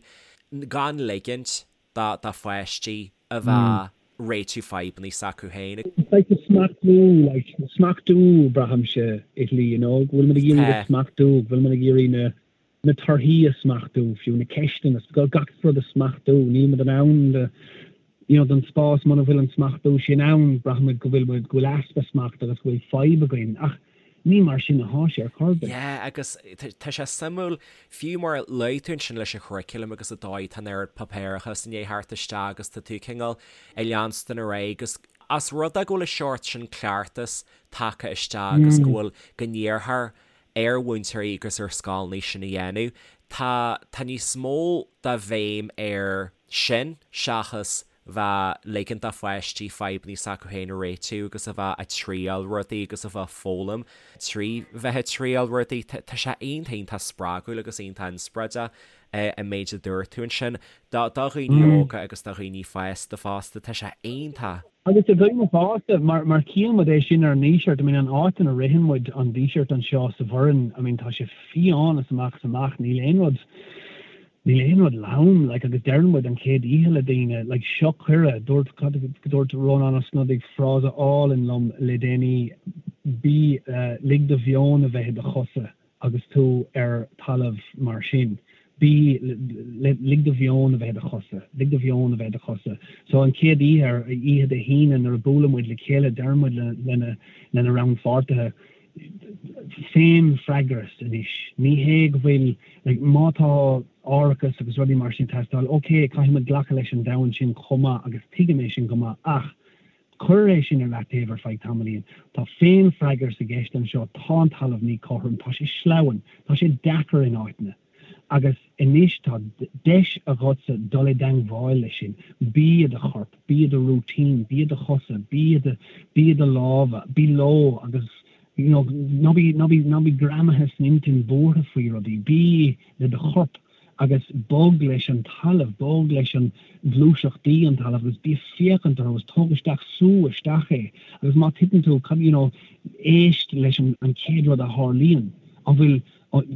A: gan ligint do pháistí a bheith ag réitiú fadhbanna s'acu féin.
C: Like the smachtú, like smachtú braithimse i shlí, you know, go bhfuil muid ag iarraidh a smachtú, go bhfuil muid ag iarraidh na na torthaí a smachtú, fiú na ceisteanna, gach rud a smachtú, níl muid in ann the you know don spás muna bhfuil an smachtú sin ann, braithimid go bhfuil muid, go bhfuil easpa smacht agus go bhfuil fadhb againn ach Ní mar sin athá sé ar chor ar bith.
A: Yeah, agus tá sé suimiúil, fiú mar a luaigh tú ansin leis an churriculum agus an dóigh tá an oiread páipéarachas i ndiaidh theacht isteach agus tá tú cineál ag leanstan ar aghaidh agus as rud é go bhfuil an seort sin cleachtas tagtha isteach agus go bhfuil, go n-iarrthar ar mhúinteoirí agus ar scoileanna sin a dhéanamh, tá, tá níos mó de bhéim air sin seachas. bheith ligint do pháistí fadhbanna s'acu féin a réitiú agus a bheith ag triail rudaí agus a bheith ag foghlaim trí bheith ag triail rudaí. Tá sé iontach iontach spreagúil agus iontach inspioráideach an méid a dúirt tú ansin. Do dhaoine óga agus do dhaoine fásta fosta, tá sé iontach.
C: Agus do dhaoine fásta, mar mar chíonn muid é sin ar an nDíseart, I mean an áit ina ritheann muid an Díseart anseo sa Bhoireann, I mean tá sé fiáin as amach is amach, níl aon rud, níl aon rud lom, like agus deireann muid an chéad oíche le daoine, like seo cuireadh, dúirt, dúirt Rónán Ó Snodaigh frása álainn liom le déanaí, bí, lig do mheon a bheith i do chosa. Agus tú ar talamh mar sin, bí, lig do mheon a bheith i do chosa, lig do mheon a bheith i do chosa. So an chéad oíche, ar oíche Dé hAoine nuair a buaileann muid le chéile, deireann muid lena, lena rannpháirtithe, féinfhreagras anois. Ní hé go bhfuil, like, má tá árachas agus rudaí mar sin ag teastáil, ok, caithfidh muid glacadh leis an domhan sin chomh maith agus tuigim é sin go maith ach, Cuir é sin ar leataobh ar feadh tamaillín. Tá féinfhreagras i gceist anseo, tá an talamh míchothrom, tá sé sleamhain, tá sé deacair in áiteanna. Agus anois tá deis agatsa dul i dteangmháil leis sin. Bí i do chorp, bí i do routine, bí i do chosa, bí i do, bí i do lámha, bí leo agus you know, ná bí, ná bí, ná bí greamaithe san intinn buartha faoi rudaí, bí le do chorp. agus bog leis an talamh, bog leis an ghluaiseachtaí an talamh agus bí ag féachaint orthu agus tóg isteach, sú isteach é agus má titeann tú, cad, you know, éist leis an an chéad rud a tharlaíonn, an bhfuil,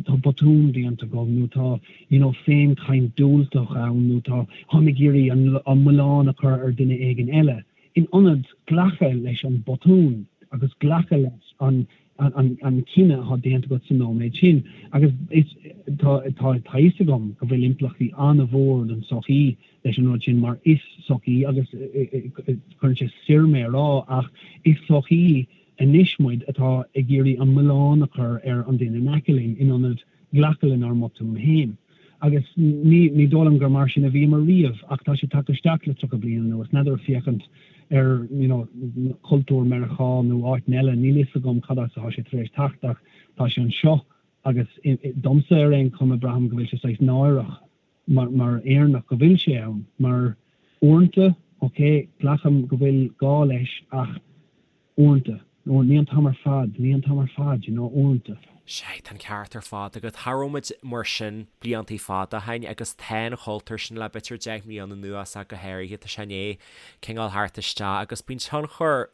C: tá botún déanta agam nó tá, you know, féinchaint diúltach ann nó tá, táim ag iarraidh an an milleán a chur ar duine éigin eile. In ionad glacadh leis an botún agus glacadh leis an an cinneadh atá déanta agat sa nóiméad sin. Agus is tá tá a fhios agam go bhfuil impleachtaí an-mhór don tsochaí leis an rud sin mar is sochaí agus cuireann sé soir mé a rá ach is sochaí anois muid atá ag iarraidh an milleán a chur ar an duine in aice linn in ionad glacadh lenár mbotúin féin. Agus ní, ní dóigh liom gur mar sin a bhíomar riamh, ach tá sé tagtha isteach le 30 bliain anuas. N'fheadar féachaint ar, you know, cultúr Meiriceá nó áiteanna eile, níl fhios agam cad as atá sé tar éis teacht ach tá sé anseo agus domsa ar aon chuma braithim go bhfuil sé saghas náireach mar, mar Éireannach go bhfuil sé ann. Mar uaireanta, ok, glacaim go bhfuil gá leis ach Uaireanta. Nó ní an t-am ar fad, ní an t-am ar fad, you know, uaireanta.
A: Sea, tá an ceart ar fad agat. Cha raibh muid mar sin bliantaí fada ó shin agus tá an chultúr sin le b'fhéidir 10 mbliana anuas ach go háirithe, tá sé i ndiaidh cineál theacht isteach agus bíonn tionchar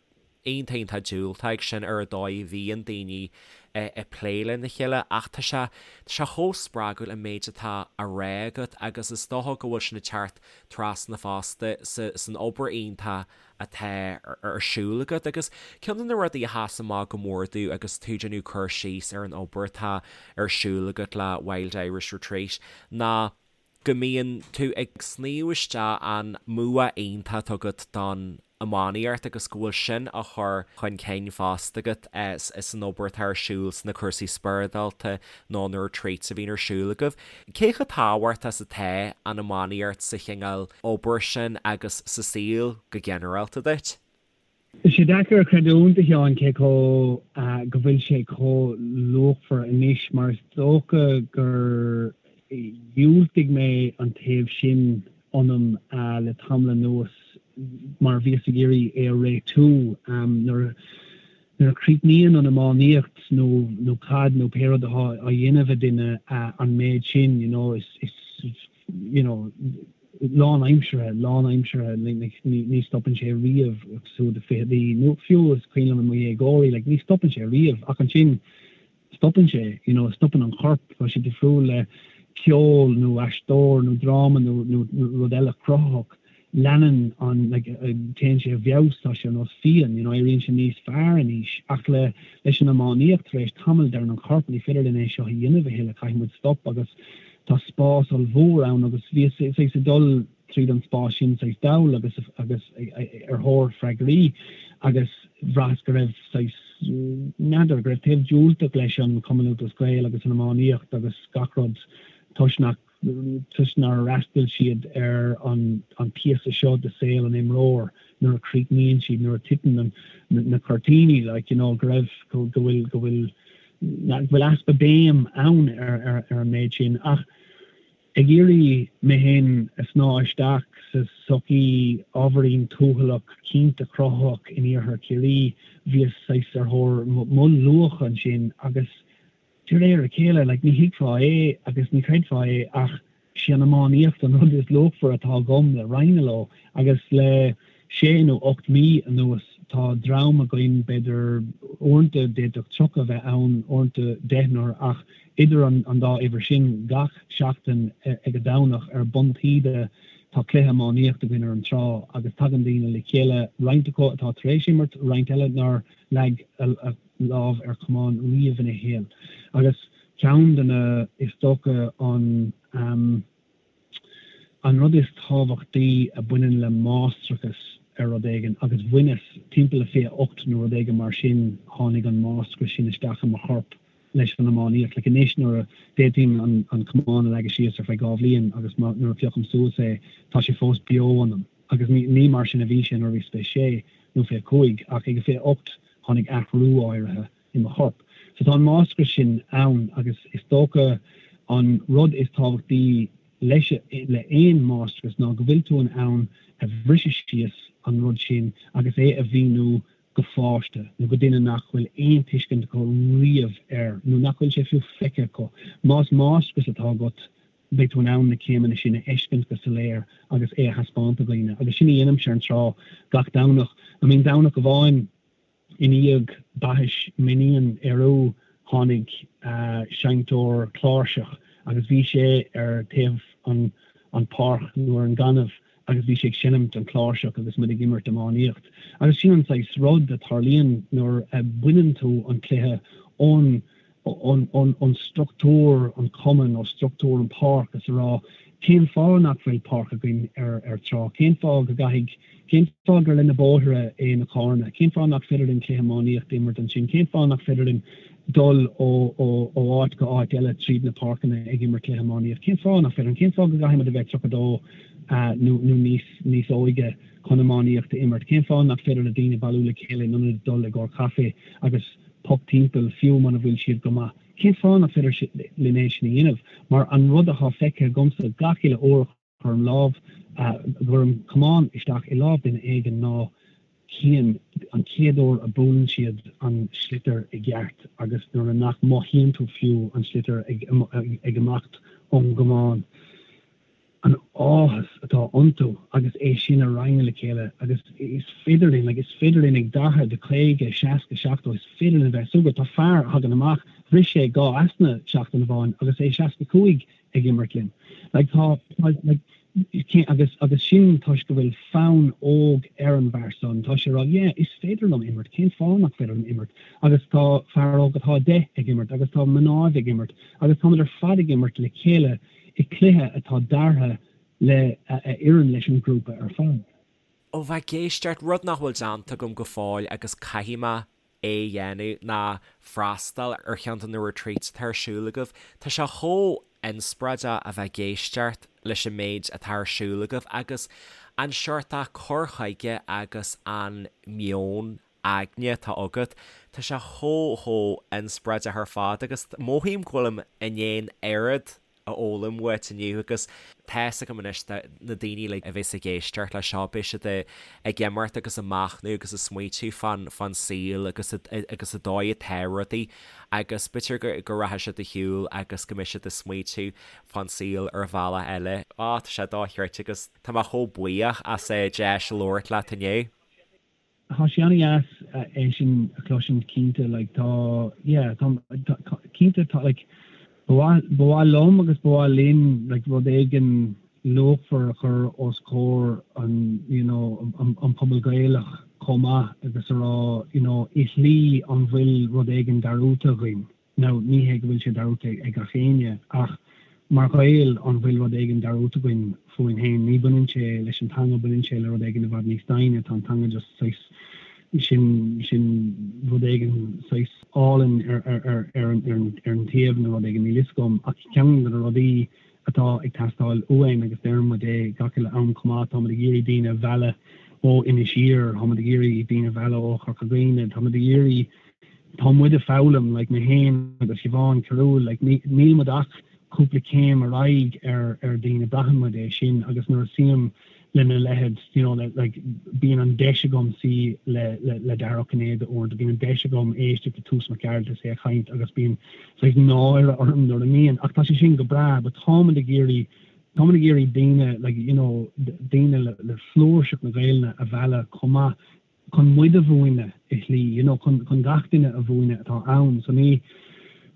A: iontach iontach diúltach ag sin ar an dóigh a bhíonn daoine ag plé lena chéile ach tá sé, tá sé chomh spreagúil an méid atá á rá agat agus is dócha go bhfuil sin ag teacht trasna fosta sa, san obair iontach atá ar siúl agat. Agus ceann de na rudaí a sheas amach go mór domh agus tú ag déanamh cur síos ar an obair atá ar siúl agat le Wild Irish Retreat ná go mbíonn tú ag sníomh isteach an mbua iontach atá agat don iománaíocht agus go bhfuil sin á chur chun cinn fosta agat san obair atá ar siúl sna cúrsaí spioradálta nó na retreats a bhíonn ar siúl agaibh. Cé chomh tábhachtach is atá an iománaíocht sa chineál obair sin agus sa saol go ginearálta duit?
C: Tá sé deacair a chreidiúint, a Sheáin, cé chomh, go bhfuil sé chomh luachmhar anois, mar is dócha gur dhiúltaigh mé an taobh sin ionam le tamall anuas mar bhíos ag iarraidh é a réitiú. Nuair a chríochnaíonn an iománaíocht nó nó caid nó pé rud atá á dhéanamh ag duine an méid sin, you know, is, is, you know, lánaimseartha, lánaimseartha, like, ní, ní stopann sé riamh agus tú i do fichidí nó fiú is cuimhin liom i mo dhéagóirí, like, ní stopann sé riamh ach ansin stopann sé, you know, stopann an corp, tá sé difriúil le ceol nó aisteoir nó dráma nó, nó, nó rud eile cruthaitheach, leanann an, like, téann sé i bhfeabhas, tá sé ar nós fíon, you know, éiríonn sé níos fearr in aois ach le, leis an iománaíocht tar éis tamaill deireann an corp ní féidir linn é seo a dhéanamh a thuilleadh, caithfidh muid stop agus tá spás ollmhór ann agus bhíos saghas ag dul tríd an spás sin saghas dall agus agus ar thóir freagraí agus bhraitheas go raibh saghas, n'fheadar, go raibh taobh diúltach leis an Chumann Lúthchleas Gael agus an iománaíocht agus gach rud toisc nach toisc nár fhreastail siad ar an an píosa seo de saol an imreoir nuair a chríochnaíonn siad, nuair a titeann na cuirtíní like you know go raibh go bhfuil go bhfuil go bhfuil easpa béim ann ar ar ar an méid sin ach ag iarraidh mé féin a shnáth isteach. sa sochaí ábhairín tuathalach, cinnte cruthaitheach in iarthar Chiarraí, bhíos saghas ar thóir mo luach ansin agus de réir a chéile, like, ní thuigfeá é agus ní chreidfeá é ach sí an iománaíocht an rud is luachmhaire atá agam le roinnt leo agus le sé nó 8 mí anuas tá dream againn, b'fhéidir uaireanta d'fhéadfadh 30 a bheith ann, uaireanta deichniúr ach idir an dá uimhir sin gach seachtain ag an Domhnach ar bun taoide tá cluiche iománaíocht againn ar an trá agus tagann daoine le chéile, roinnt acu atá tar éis imirt, roinnt eile nár leag a lámh ar chamán riamh ina shaol agus ceann de na, is dócha an an rud is tábhachtaí a bhaineann le máistreachas ar rud éigin agus bhaineas timpeall le 28 nó rud éigin mar sin tháinig an máistreachas sin isteach i mo chorp leis an iománaíocht. Like anois nuair a d'fhéadfainn an an camán a leagadh síos ar feadh 2 bhliain agus má nuair a phiocaim suas é tá sé fós beo ionam agus ní ní mar sin a bhí sé nuair a bhíos 26 nó 25 ach ag a 28 tháinig athrú áirithe i mo chorp. So tá an máistreachas sin ann agus is dócha an rud is tábhachtaí leis le aon máistreachas ná go bhfuil tú in ann a bhriseadh síos an rud sin agus é a mhíniú go pháiste nó go duine nach bhfuil aon tuiscint acu riamh air nó nach bhfuil sé fiú feicthe acu. Más máistreachas atá agat beidh tú in ann na céimeanna sin a fheiscint go soiléir agus é a thaispeáint do dhaoine agus sin a dhéanaimse ar an trá gach Domhnach. I mean Domhnach amháin i ndiaidh baithis m'iníon Ériu tháinig seinnteoir cláirseach agus bhí sé ar taobh an an páirc nó ar an gaineamh agus bhí sé ag seinimt an cláirseach agus muid ag imirt iománaíocht. Agus sin an saghas rud a tarlaíonn nuair a bhaineann tú an cluiche ón ón struchtúr an cumann, ó struchtúr an páirc is a rá cén fáth nach bhfuil páirc againn ar ar trá, cén fáth go gcaithfidh, cén fáth gur le na bóithre é na carranna, cén fáth nach féidir linn cluiche iománaíocht a imirt ansin, cén fáth nach féidir linn dul ó ó ó áit go áit eile tríd na páirceanna ag imirt cluiche iománaíocht, cén fáth nach féidir linn, cén fáth go gcaithfidh muid a bheith 32 nó nó níos níos óige chun iománaíocht a imirt, cén fáth nach féidir le daoine bailiú le chéile in ionad dul i gcomhair caife agus poc timpeall, fiú muna bhfuil siad go maith. Cén fáth nach féidir linn é sin a dhéanamh? Mar an rud atá feicthe agamsa gach uile uair a chuirim lámh, a gcuirim camán isteach i lámh duine éigin ná cén, an chéad uair a buaileann siad an sliotar i gceart agus nuair a nach mothaíonn tú fiú an sliotar ag ag imeacht ón gcamán. an áthas atá iontu agus é sin a roinnt le chéile agus is féidir linn, like, is féidir linn ag 40, 50, 60, 70, is féidir linn a bheith súgrach. Tá fear a thagann amach, bhris sé 2 easna seachtain amháin agus é 65 ag imirt linn. Like, tá, like, agus, agus sin toisc go bhfuil fonn óg ar an bhfear san, tá sé ag rá, yeah, is féidir liom imirt, cén fáth nach féidir liom imirt? Agus tá fear óg atá 10 ag imirt agus tá mnáibh ag imirt agus táimid ar fad ag imirt le chéile i cluiche atá deartha le a oireann leis an ghrúpa ar fad.
A: Ó bheith ag éisteacht, rud nach bhfuil déanta agam go fóill agus caithfidh mé é a dhéanamh ná freastal ar cheann de na retreats atá ar siúl agaibh. Tá sé chomh inspioráideach a bheith ag éisteacht leis an méid atá ar siúl agaibh agus an seort cur chuige agus an meon aigne atá agat. Tá sé chomh chomh inspioráideach ar fad agus mothaím go bhfuilim i ndiaidh an oiread a fhoghlaim uait inniu agus tá's agam anois na daoine uilig a bheas ag éisteacht leis seo beidh siad ag imeacht agus ag machnamh agus ag smaoitiú fán fán saol agus agus an dóigh atá rudaí agus b'fhéidir go go rachaidh siad ar shiúl agus go mbeidh siad ag smaoitiú fán saol ar bhealach eile. Á tá sé dochreidte agus tá mé chomh buíoch as an deis labhairt leat inniu.
C: Tá sé an-dheas é sin a chloisint cinnte like tá yeah tá cinnte tá like ba mhaith ba mhaith liom agus ba mhaith linn like rud éigin luachmhar a chur os comhair an you know an an pobal Gaelach chomh maith agus a rá you know i shlí an bhfuil rud éigin dearúdta againn. Now, ní hé go bhfuil sé dearúdta ag gach éinne, ach mar Ghaeil, an bhfuil rud éigin dearúdta againn fúinn féin? Ní baineann sé leis an teanga, baineann sé le rud éigin i bhfad níos doimhne. Tá an teanga just saghas, sin, sin rud éigin saghas álainn ar, ar, ar, ar an, ar an, ar an taobh nó rud éigin, níl fhios agam. Ach ceann de na rudaí atá ag teastáil uainn agus deireann muid é gach uile am chomh maith, táimid ag iarraidh daoine a mhealladh ó Inis Oírr, táimid ag iarraidh daoine a mhealladh ó Chorca Dhuibhne, táimid ag iarraidh, tá muid ag foghlaim, like mé féin agus Siobhán Carúil, like níl muid ach cúpla céim ar aghaidh ar ar daoine, braitheann muid é sin agus nuair a suím. Lena leithéid, you know, like, bíonn an deis agam suí le, le, le Dara Ó Cinnéide uaireanta, bíonn an deis agam éisteacht le Toose Mac Gearailt is é ag caint agus bíonn saghas náire orm nuair a mbíonn, ach tá sé sin go breá, but táimid ag iarraidh, táimid ag iarraidh daoine, like, you know, daoine le, le flúirseacht na Gaelainne a mhealladh chomh maith chun muid a mhúineadh i shlí, you know, chun, chun gach duine a mhúineadh atá ann. So ní,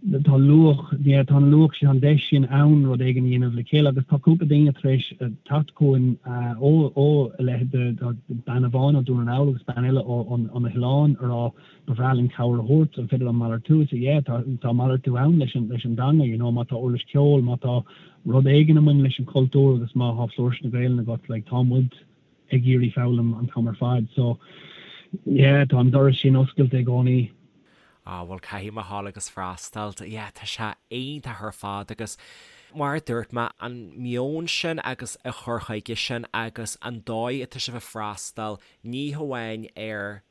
C: tá luach, yeah, tá an luach sin, tá an deis sin ann rud éigin a dhéanamh le chéile agus tá cúpla daoine tar éis teacht chugainn ó, ó a leithéid de, de bean amháin ó Dún na nGall agus bean eile ó, ó, ó na hoileáin a rá ba bhreá linn cabhair a thabhairt, an féidir liom malartú? So yeah, tá, tá malartú ann leis an, leis an dteanga, you know, má tá uirlis ceoil, má tá rud éigin a mbaineann leis an chultúr agus má thá flúirse na Gaelainne agat, like, tá muid ag iarraidh foghlaim an t-am ar fad. So, yeah, tá an doras sin oscailte i gcónaí.
A: Ah, bhuel, caithfidh mé a ghabháil agus freastal. Yeah, tá sé iontach ar fad agus mar a dúirt mé, an meon sin agus an cur chuige sin agus an dóigh atá sibh ag freastal ní hamháin ar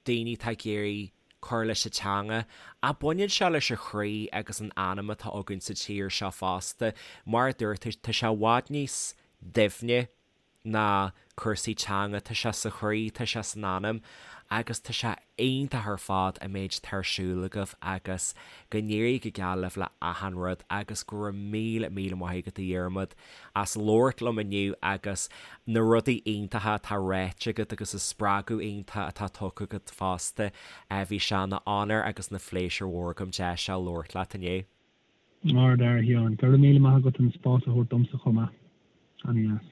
A: daoine atá ag iarraidh cur leis an teanga ach baineann sé leis an chroí agus an anam atá againn sa tír seo fosta. Mar a dúirt tú, tá sé i bhfad níos doimhne ná cúrsaí teanga, tá sé sa chroí, tá sé san anam agus tá sé iontach ar fad an méid atá ar siúl agaibh agus go n-éirí go geal libh le achan rud agus go raibh míle míle maith agat a Dhiarmaid as labhairt liom inniu agus na rudaí iontacha atá ráite agat agus an spreagadh iontach atá tugtha agat fosta. Bhí sé ina onóir agus ina phléisiúr mhór agam deis seo labhairt leat inniu.
C: Ard-fhear, a Sheáin. Go raibh míle maith agat an spás a thabhairt domsa chomh maith. Ana-dheas.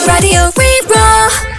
B: Raidió Rí-Rá.